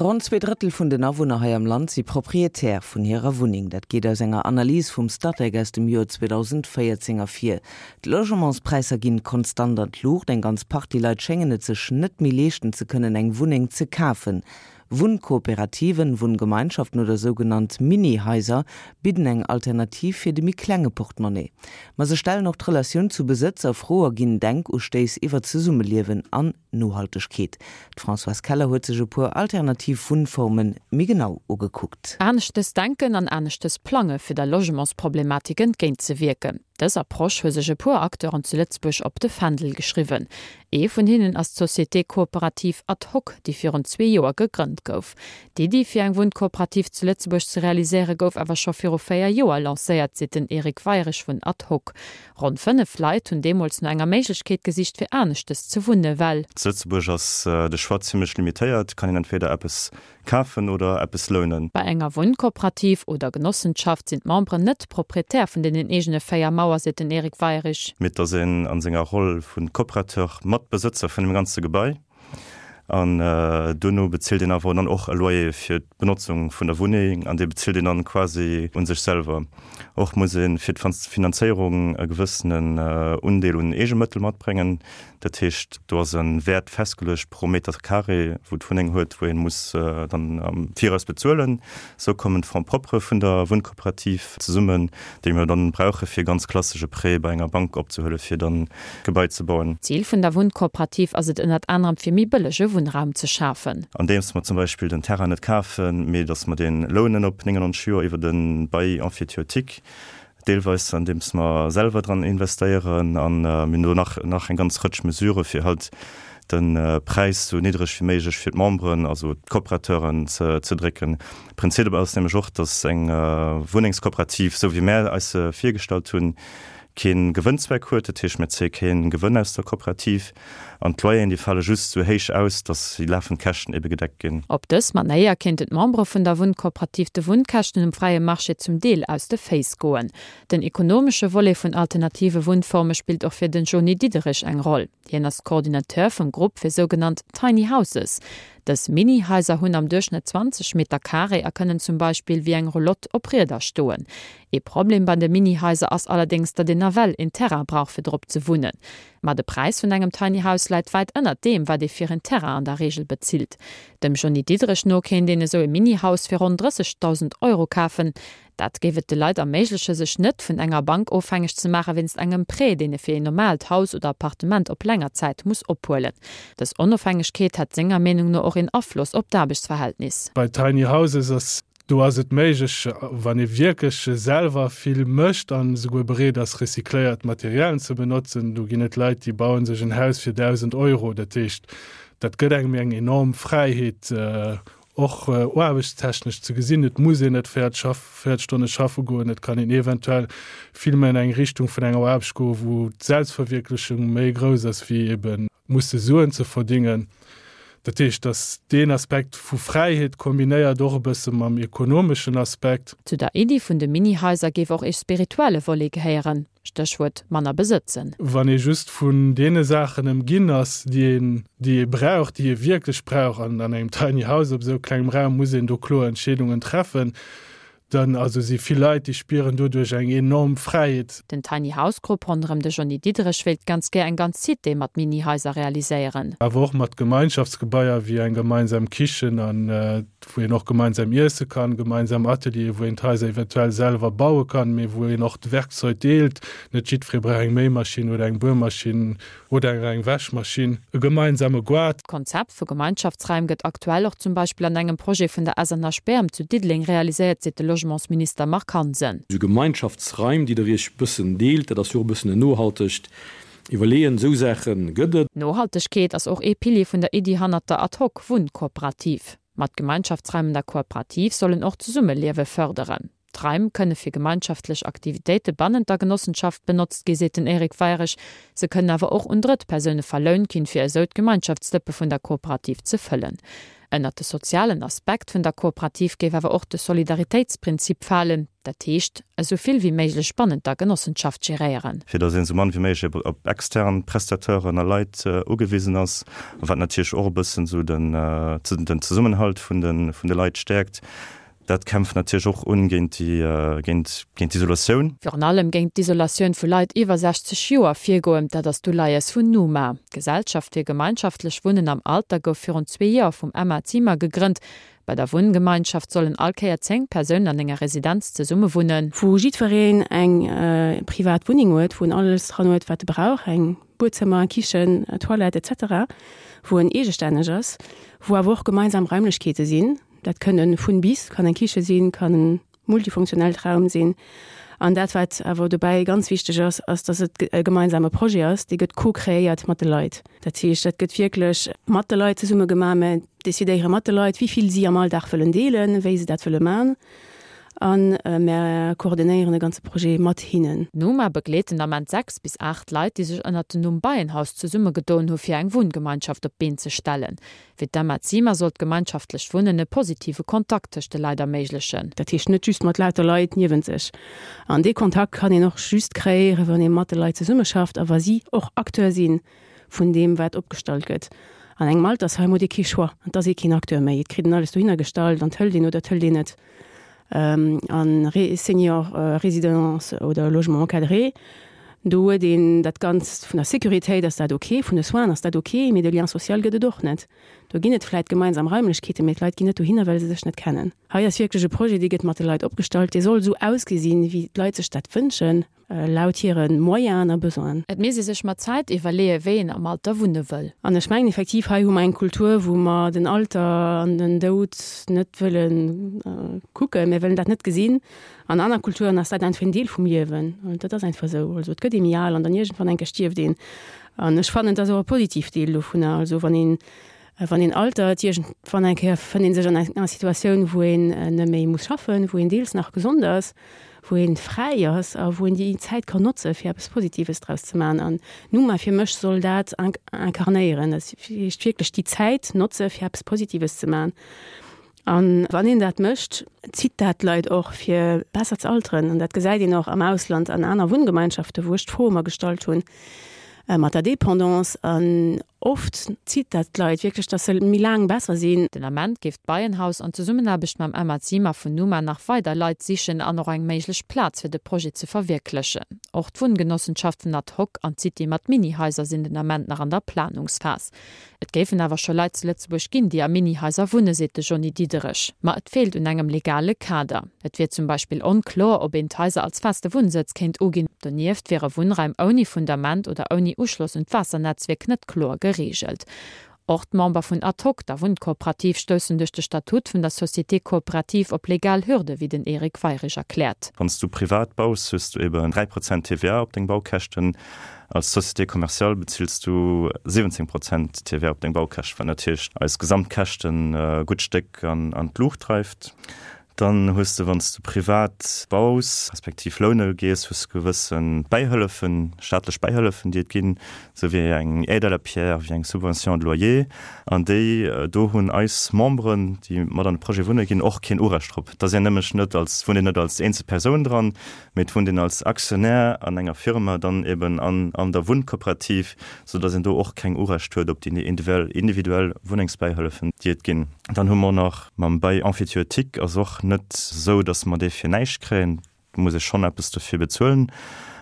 Ronn 2 Drëttel vun den Awunner hei am Land si Proprietär vun hirer Wunneng. Dat geet aus enger Analys vum Statec aus dem Joer 2014 ervir. D'Logementspräisser ginn konstant an d'Luucht. Eng ganz Partie Leit schéngen et sech net méi leeschten ze kënnen, eng Wunneng ze kafen. Wunnkooperativen, Wunngemeinschaften oder sougenannt Mini-Haiser bidden eng Alternativ fir de méi klenge Portemonnaie. Ma se stellen och d'Relatioun zu Besëtz a Fro a ginn Denkustéiss iwwer Zesummeliewen an Nohaltegkeet. D'Françoise Keller huet sech e puer alternativ Wunnforme méi genau ugekuckt. Aneschtes denken an aneschtes plange fir der Logementsproblematik entgéint ze wierken. Dës Approche hu sech e puer Acteuren zu Lëtzebuerg op de Fändel geschriwwen. Ee vun hinnen ass d'Société coopérative Ad Hoc, déi virun zwee Joer gegrënnt gouf. D'Iddi fir eng Wunnkooperativ zu Lëtzebuerg ze realiséiere gouf awer scho viru 4 Joer lancéiert, seet den Eric Weirich vun Ad Hoc. Ronn 5 Leit hunn deemools no enger Méiglechkeet gesicht fir aneschtes ze wunne well. Zu Lëtzebuerg ass de Choix zimmlech limitéiert, kann een entweder eppes Kafen oder eppes lounen. Bei enger Wunnkooperativ oder Genossenschaft sinn d'Memberen net Proprietär vun deenen eegene 4 Mauer, seet den Eric Weirich. Mee et ass een a senger Roll vu Coopérateur mat Besëtzer vun dem ganze Gebai. An duerno bezilt een awer dann och e Loyer fir d'Benotzung vun der Wunneng an dee bezilt een dann quasi u sech selwer. Och muss ee fir d'Finanzéierung e gewëssenen Undeel un Eegemëttel matbréngen. Dat heescht, do ass e Wäert festgeluecht pro Meter carré, wou d'Wunneng huet, wou ee muss dann am Viraus bezuelen. Esou kommen d'Fonds propres vun der Wunnkooperativ zesummen, déi mir dann brauche fir ganz klassesch e Prêt bei enger Bank opzehuelen, fir dann d'Gebai ze bauen. Zil vun der Wunnkooperativ ass et ënnert anerem fir méi bëllege Wunnraum ze schafen. Andeems mer zum Beispill den Terrain net kafen, mee datt mer dee lounen op 99 Joer iwwer e Bail emphytéotique. Deelweis andeems mer selwer dran investéieren an mir hunn do nach nach eng ganz Rëtsch Mesurë fir halt de Präis sou niddreg wéi méiglech fir d'Memberen, also d'Coopérateuren ze ze drécken. Prinzip dobäi ass nämlech och, datt eng Wunnengskooperativ, sou wéi mär eis se virgestallt hunn, kee Gewënnzweck huet. Dat heescht, mir zéie kee Gewënn aus der Kooperativ an d'Loyeren, déi fale just sou héich aus, datt déi lafend Käschten ebe gedeckt ginn. Op dës Manéier kéinten d'Membere vun der Wunnkooperativ de Wunnkäschten um fräie Marché zum Deel aus de Féiss goen. Den ekonomesche Volet vun alternative Wunnforme spillt och fir den Jony Diderich eng Roll. Hien ass Coordinateur vum Grupp fir sougenannt Tiny Houses. Dës Mini-Haiser hunn am Duerchschnëtt 20 Meter Carré a kënnen zum Beispill wéi eng Roulotte op Rieder stoen. Ee Problem bei de Mini-Haiser ass allerdéngs, datt een nawell een Terrain brauch fir drop ze wunnen. Ma de Präis vun engem Tiny House läit wäit ënnert deem, wat ee fir een Terrain an der Reegel bezilt. Dem Jony Diderich no kéint een esou e Mini-Haus fir ronn 30.000 Euro kafen. Dat géif et de Leit erméigleche sech net vun enger Bank ofhängeg ze maache wéinst engem Prêt, deen e fir een normaalt Haus oder Appartement op länger Zäit muss ophuelen. Dës Onofhängegkeet hätt senger Meenung no och een Afloss op d'Aarbechtsverhältnis. Bei Tiny Houses ass Do ass et méiglech, wann ee wierklech selwer vill mécht an esouguer bereet ass, recycléiert Materialien ze benotzen. Do ginn et Leit, déi baue sech en Haus fir 1.000 Euro. Dat heescht, dat gëtt engem eng enorm Fräiheet, och aarbechtstechnesch ze gesinn. Et muss een net 40 Stonne schaffe goen. Et kann een eventuell vill méi an eng Richtung vun enger Aarbecht goen, wou d'Selbstverwierklechung méi grouss ass wéi eben musse Suen ze verdingen. Dat heescht, datt deen Aspekt vu Fräiheet kombinéiert och e bësse mam ekonomeschen Aspekt. Zu der Iddi vun de Mini-Haiser géif och ee spirituelle Volet gehéieren, Stéchwuert manner besëtzen. Wann ee just vun deene Saachen ëmginn ass, déi een, déi ee brauch, déi ee wierklech brauch, an an engem Tiny House op esou klengem Raum muss een do kloer Entscheedungen treffen, Dann also si vill Leit, déi spieren doduerch eng enorm Fräiheet. Den Tiny House Grupp ronderëm de Johny Diderich wéilt ganz gär eng ganz Cité mat Mini-Haiser realiséieren. Awer och mat Gemeinschaftsgebaier wéi eng gemeinsam Kichen an wou een och gemeinsam iesse kann, gemeinsam Ateliere wou een d'Haiser eventuell selwer baue kann, mee wou een och d'Werkzeug deelt. Net jiddweree brauch eng Méimaschinn oder eng Buermaschinn oder eng Wäschmaschinn, e gemeinsame Goart. D'Konzept vu Gemeinschaftsraim gëtt aktuell och zum Beispill an engem Projet vun der SNH Bärem zu Diddeleng realiséiert, seet de Logementsminister Marc Hansen. Esou Gemeinschaftsraim, déi der Iech bëssen deelt, dat ass jo och e bëssen en nohaltegt Iwwerleeën. Esou Saache gëtt et. Nohaltegkeet ass och ee Pilier vun der Iddi hannert der Ad-hoc-Wunnkooperativ. Ma d'Gemeinschaftsraim an der Kooperativ sollen och d'Zesummeliewe fërderen. D'Raim kënne fir gemeinschaftlech Aktivitéite bannent der Genossenschaft benotzt gi, seet den Eric Weirich. Se kënnen awer och un Drëttpersoune verlount ginn, fir esou d'Gemeinschaftsdëppe vun der Kooperativ ze fëllen. Ënnert de sozialen Aspekt vun der Kooperativ géif awer och de Solidaritéitsprinzip falen, dat heescht, esou vill wéi méiglech bannent der Genossenschaft geréieren. Fir datt een esou mann wéi méiglech op extern Prestateuren a Leit ugewisen ass, a wat natierlech och e bëssen esou den Zesummenhalt vun de Leit stäerkt. Dat kämpft natierlech och un géint déi, géint, géint d'Isolatioun. Virun allem géint d'Isolatioun vu Leit iwwer 60 Joer virgoen, dat ass d'Uleies vun Numa. D'Gesellschaft fir gemeinschaftlech Wunnen am Alter gouf virun zwee Joer vum Emma Ziemer gegrënnt. Bei der Wunngemeinschaft sollen all Kéier 10 Persounen an enger Residenz zesumme wunnen. Wou jiddwereen eng privat Wunneng huet, wou en alles dran huet, wat e brauch, eng Buedzëmmer, eng Kichen, Toilette, etc. Wou en eegestänneg ass, wou awer och gemeinsam Raimlechkeete sinn. Dat kënnen vun bis, kann eng Kiche sinn, kann en multifunktionellt Raum sinn. An dat, wat awer dobäi ganz wichteg ass, ass, dass et e gemeinsame Projet ass, dee gëtt co-kreéiert mat de Leit. Dat heescht, dat gëtt wierklech mat de Leit zesumme gemaach. Mir decidéiere mat de Leit, wéi vill si am Alldag wëllen deelen, wéi se dat wëlle man. A mir koordinéieren de ganze Projet mat hinnen. D'Numa begleet den Ament 6 bis 8 Leit, déi sech ënnert dem Numm Beienhaus zesummegedoen hu fir eng Wunngemeinschaft op d'Been ze stellen. Fir d'Emma Ziemer soll d'gemeinschaftlecht Wunnen e positive Kontakt tëscht de Leit erméiglechen. Dat heescht net just mat lauter Leit niewent sech. An dee Kontakt kann een och just kreéieren, wann ee mat de Leit zesummeschafft a wa si och Acteur si vun deem, wat opgestallt gëtt. An engem Altersheim huet ee kee Choix, et ass ee keen Acteur méi. Et kritt een alles dohinner gestallt an et hëlt een oder et hëlt een net. An Senior Résidence oder Logement encadré, do huet een dat Ganzt, vun der Sécuritéit ass dat ok, vun de Soinen ass dat ok, mee de Lien social gëtt et och net. Do ginn et vläit gemeinsam Raimlechkeeten, mee d'Leit ginn net dohinner, well se sech net kennen. Hei ass wierklech e Projet, dee gëtt mat de Leit opgestallt, dee soll esou ausgesinn, wéi d'Leit sech dat wënschen. Laut hire Moyenen a Besoinen. Et misst ee sech mat Zäit iwwerleeë wéi een am Alter wunne wëll. An ech mengen effektiv, hei hu mer eng Kultur, wou mer den Alter an den Doud net wëlle kucken. Mir wëllen dat net gesinn. An aner Kulturen ass dat einfach en Deel vum Liewen. Dat ass einfach esou. Also et gëtt ee méi al an dann iergendwann eng Kéier stierft een. An ech fannen, et ass och e positivt Deel dovunner. Also wann een Wann een altert, iergendwann eng Kéier fënnt ee sech an enger Situatioun, wou een net méi muss schaffen, wou een deels nach gesond ass, wou ee fräi ass a wou een déi Zäit kann notze fir eppes Positives draus ze maachen. An Numa fir mech soll dat incarnéieren, dat heescht wierklech déi Zäit notze fir eppes Positives ze maachen. An wann een dat mécht, zitt dat d'Leit och fir besser ze alteren. An dat gesäit een och am Ausland an aner Wunngemeinschaften, wou ech d'Fro ëmmer gestallt hunn mat der Dépendance. An Oft zitt dat d'Leit wierklech, dass se méi laang besser sinn. Den Ament géif d'Beienhaus an Zesummenaarbecht mam Emma Ziemer vun Numa nach weider Leit sichen an och eng méiglech Plaz fir de Projet ze verwierklechen. Och d'Wunngenossenschaften Ad Hoc an d'City mat Mini-Haiser sinn den Ament nach an der Planungsphas. Et géifen awer scho Leit zu Lëtzebuerg ginn, déi a Mini-Haiser wunnen, seet de Johny Diderich. Ma et feelt un engem legale Kader. Et wier zum Beispill onkloer, ob een d'Haiser als feste Wunnsëtz kéint uginn. Donieft wiere Wunnraim ouni Fundament oder ouni Uschloss un d'Waassernetzwierk net kloer gereegelt. Och d'Member vun Ad hoc, der Wunnkooperativ, stoussen duerch de Statut vun der Société coopérative op legal Hürde, wéi den Eric Weirich erkläert. Wann s du privat baus, hues du eben 3 Prozent TVA op deng Baukäschten. Als Société commerciale bezills du 17 Prozent TVA op deng Baukäschten, wat natierlech eis Gesamtkäschten e gutt Stéck an d'Luucht dreift. Dann hues de, wann s de privat baus, respektiv loune gees, hues de gewësse Bäihëllefen, staatlech Bäihëllefen, déi et ginn, esou wéi eng Aide à la pierre, wéi eng Subvention de loyer. An déi do hunn eis Memberen, déi mat an de Projet wunne ginn, och keen Urecht drop. Et ass een nämlech net als, wunnt een net als eenzel Persoun dran, mee et wunnt een als Aktionär an enger Firma dann eben an an der Wunnkooperativ, soudass een do och keng Urecht huet op déi individuell Wunnengsbäihëllefen, déi et ginn. Dann hu mer nach Mam Bail emphytéotique ass och net esou, datt mer dee fir näischt kréien. Do muss ee schonn eppes dofir bezuelen.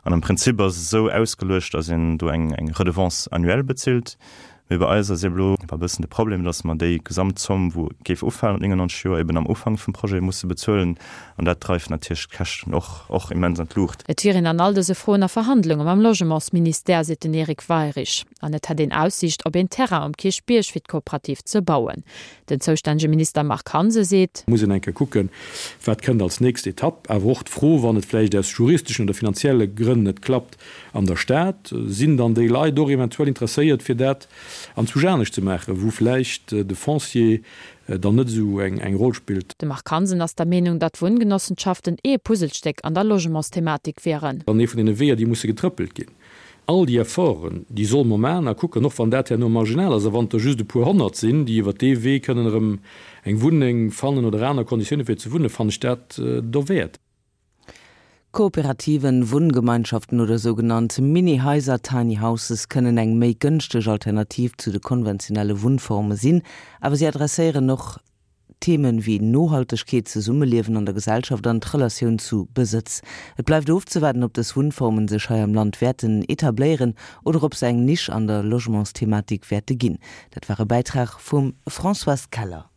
An am Prinzip ass et esou ausgeluecht, datt een do eng Redevance annuelle bezilt. Mee bei eis ass eeben elo e bëssen de Problem, datt mer déi Gesamtzomm, wou géif ufalen op 99 Joer, eeben am Ufank vum Projet musse bezuelen. An dat dreift natierlech d'Käschten och och immens an d'Luucht. Et wier een an all dëse Froen a Verhandlunge mam Logementsministère, seet den Eric Weirich. An et hätt een Aussiicht op een Terrain um Kierchbierg fir d'Kooperativ ze bauen. Den zoustännege Minister Marc Hansen seet. Muss een eng Kéier kucken, wat kënnt als nächst Etapp. Awer och d'Fro, wann et vläicht aus juristeschen oder finanzielle Grënn net klappt an der Stad, sinn dann déi Leit och eventuell interesséiert, fir dat anzwousch anescht ze maachen, wou vläicht de Foncier dann net esou eng Roll spillt. De Marc Hansen ass der Meenung, datt Wunngenossentschaften ee Puzzlestéck an der Logementsthematik wieren. An ee vun deene Weeër, déi musse getrëppelt ginn. All déi Efforten, déi solle mer maachen a kucken, och wann dat herno marginal ass a wann et der just e puer Honnert sinn, déi iwwert dee Wee kënnen erëm eng Wunneng fannen oder aner Konditioune fir ze wunnen, fannen ech dat dowäert. Kooperativen, Wunngemeinschaften oder sougenannt Mini-Haiser, Tiny Houses, kënnen eng méi gënschteg Alternativ zu de konventionelle Wunnforme sinn, awer si adresséieren och Themen wéi Nohaltegkeet, Zesummeliewen an der Gesellschaft an d'Relatioun zu Besëtz. Et bleift ofzewaarden, ob dës Wunnformen sech hei am Land wäerten etabléieren oder ob se eng Nisch an der Logementsthematik wäerte ginn. Dat war e Bäitrag vum Françoise Keller.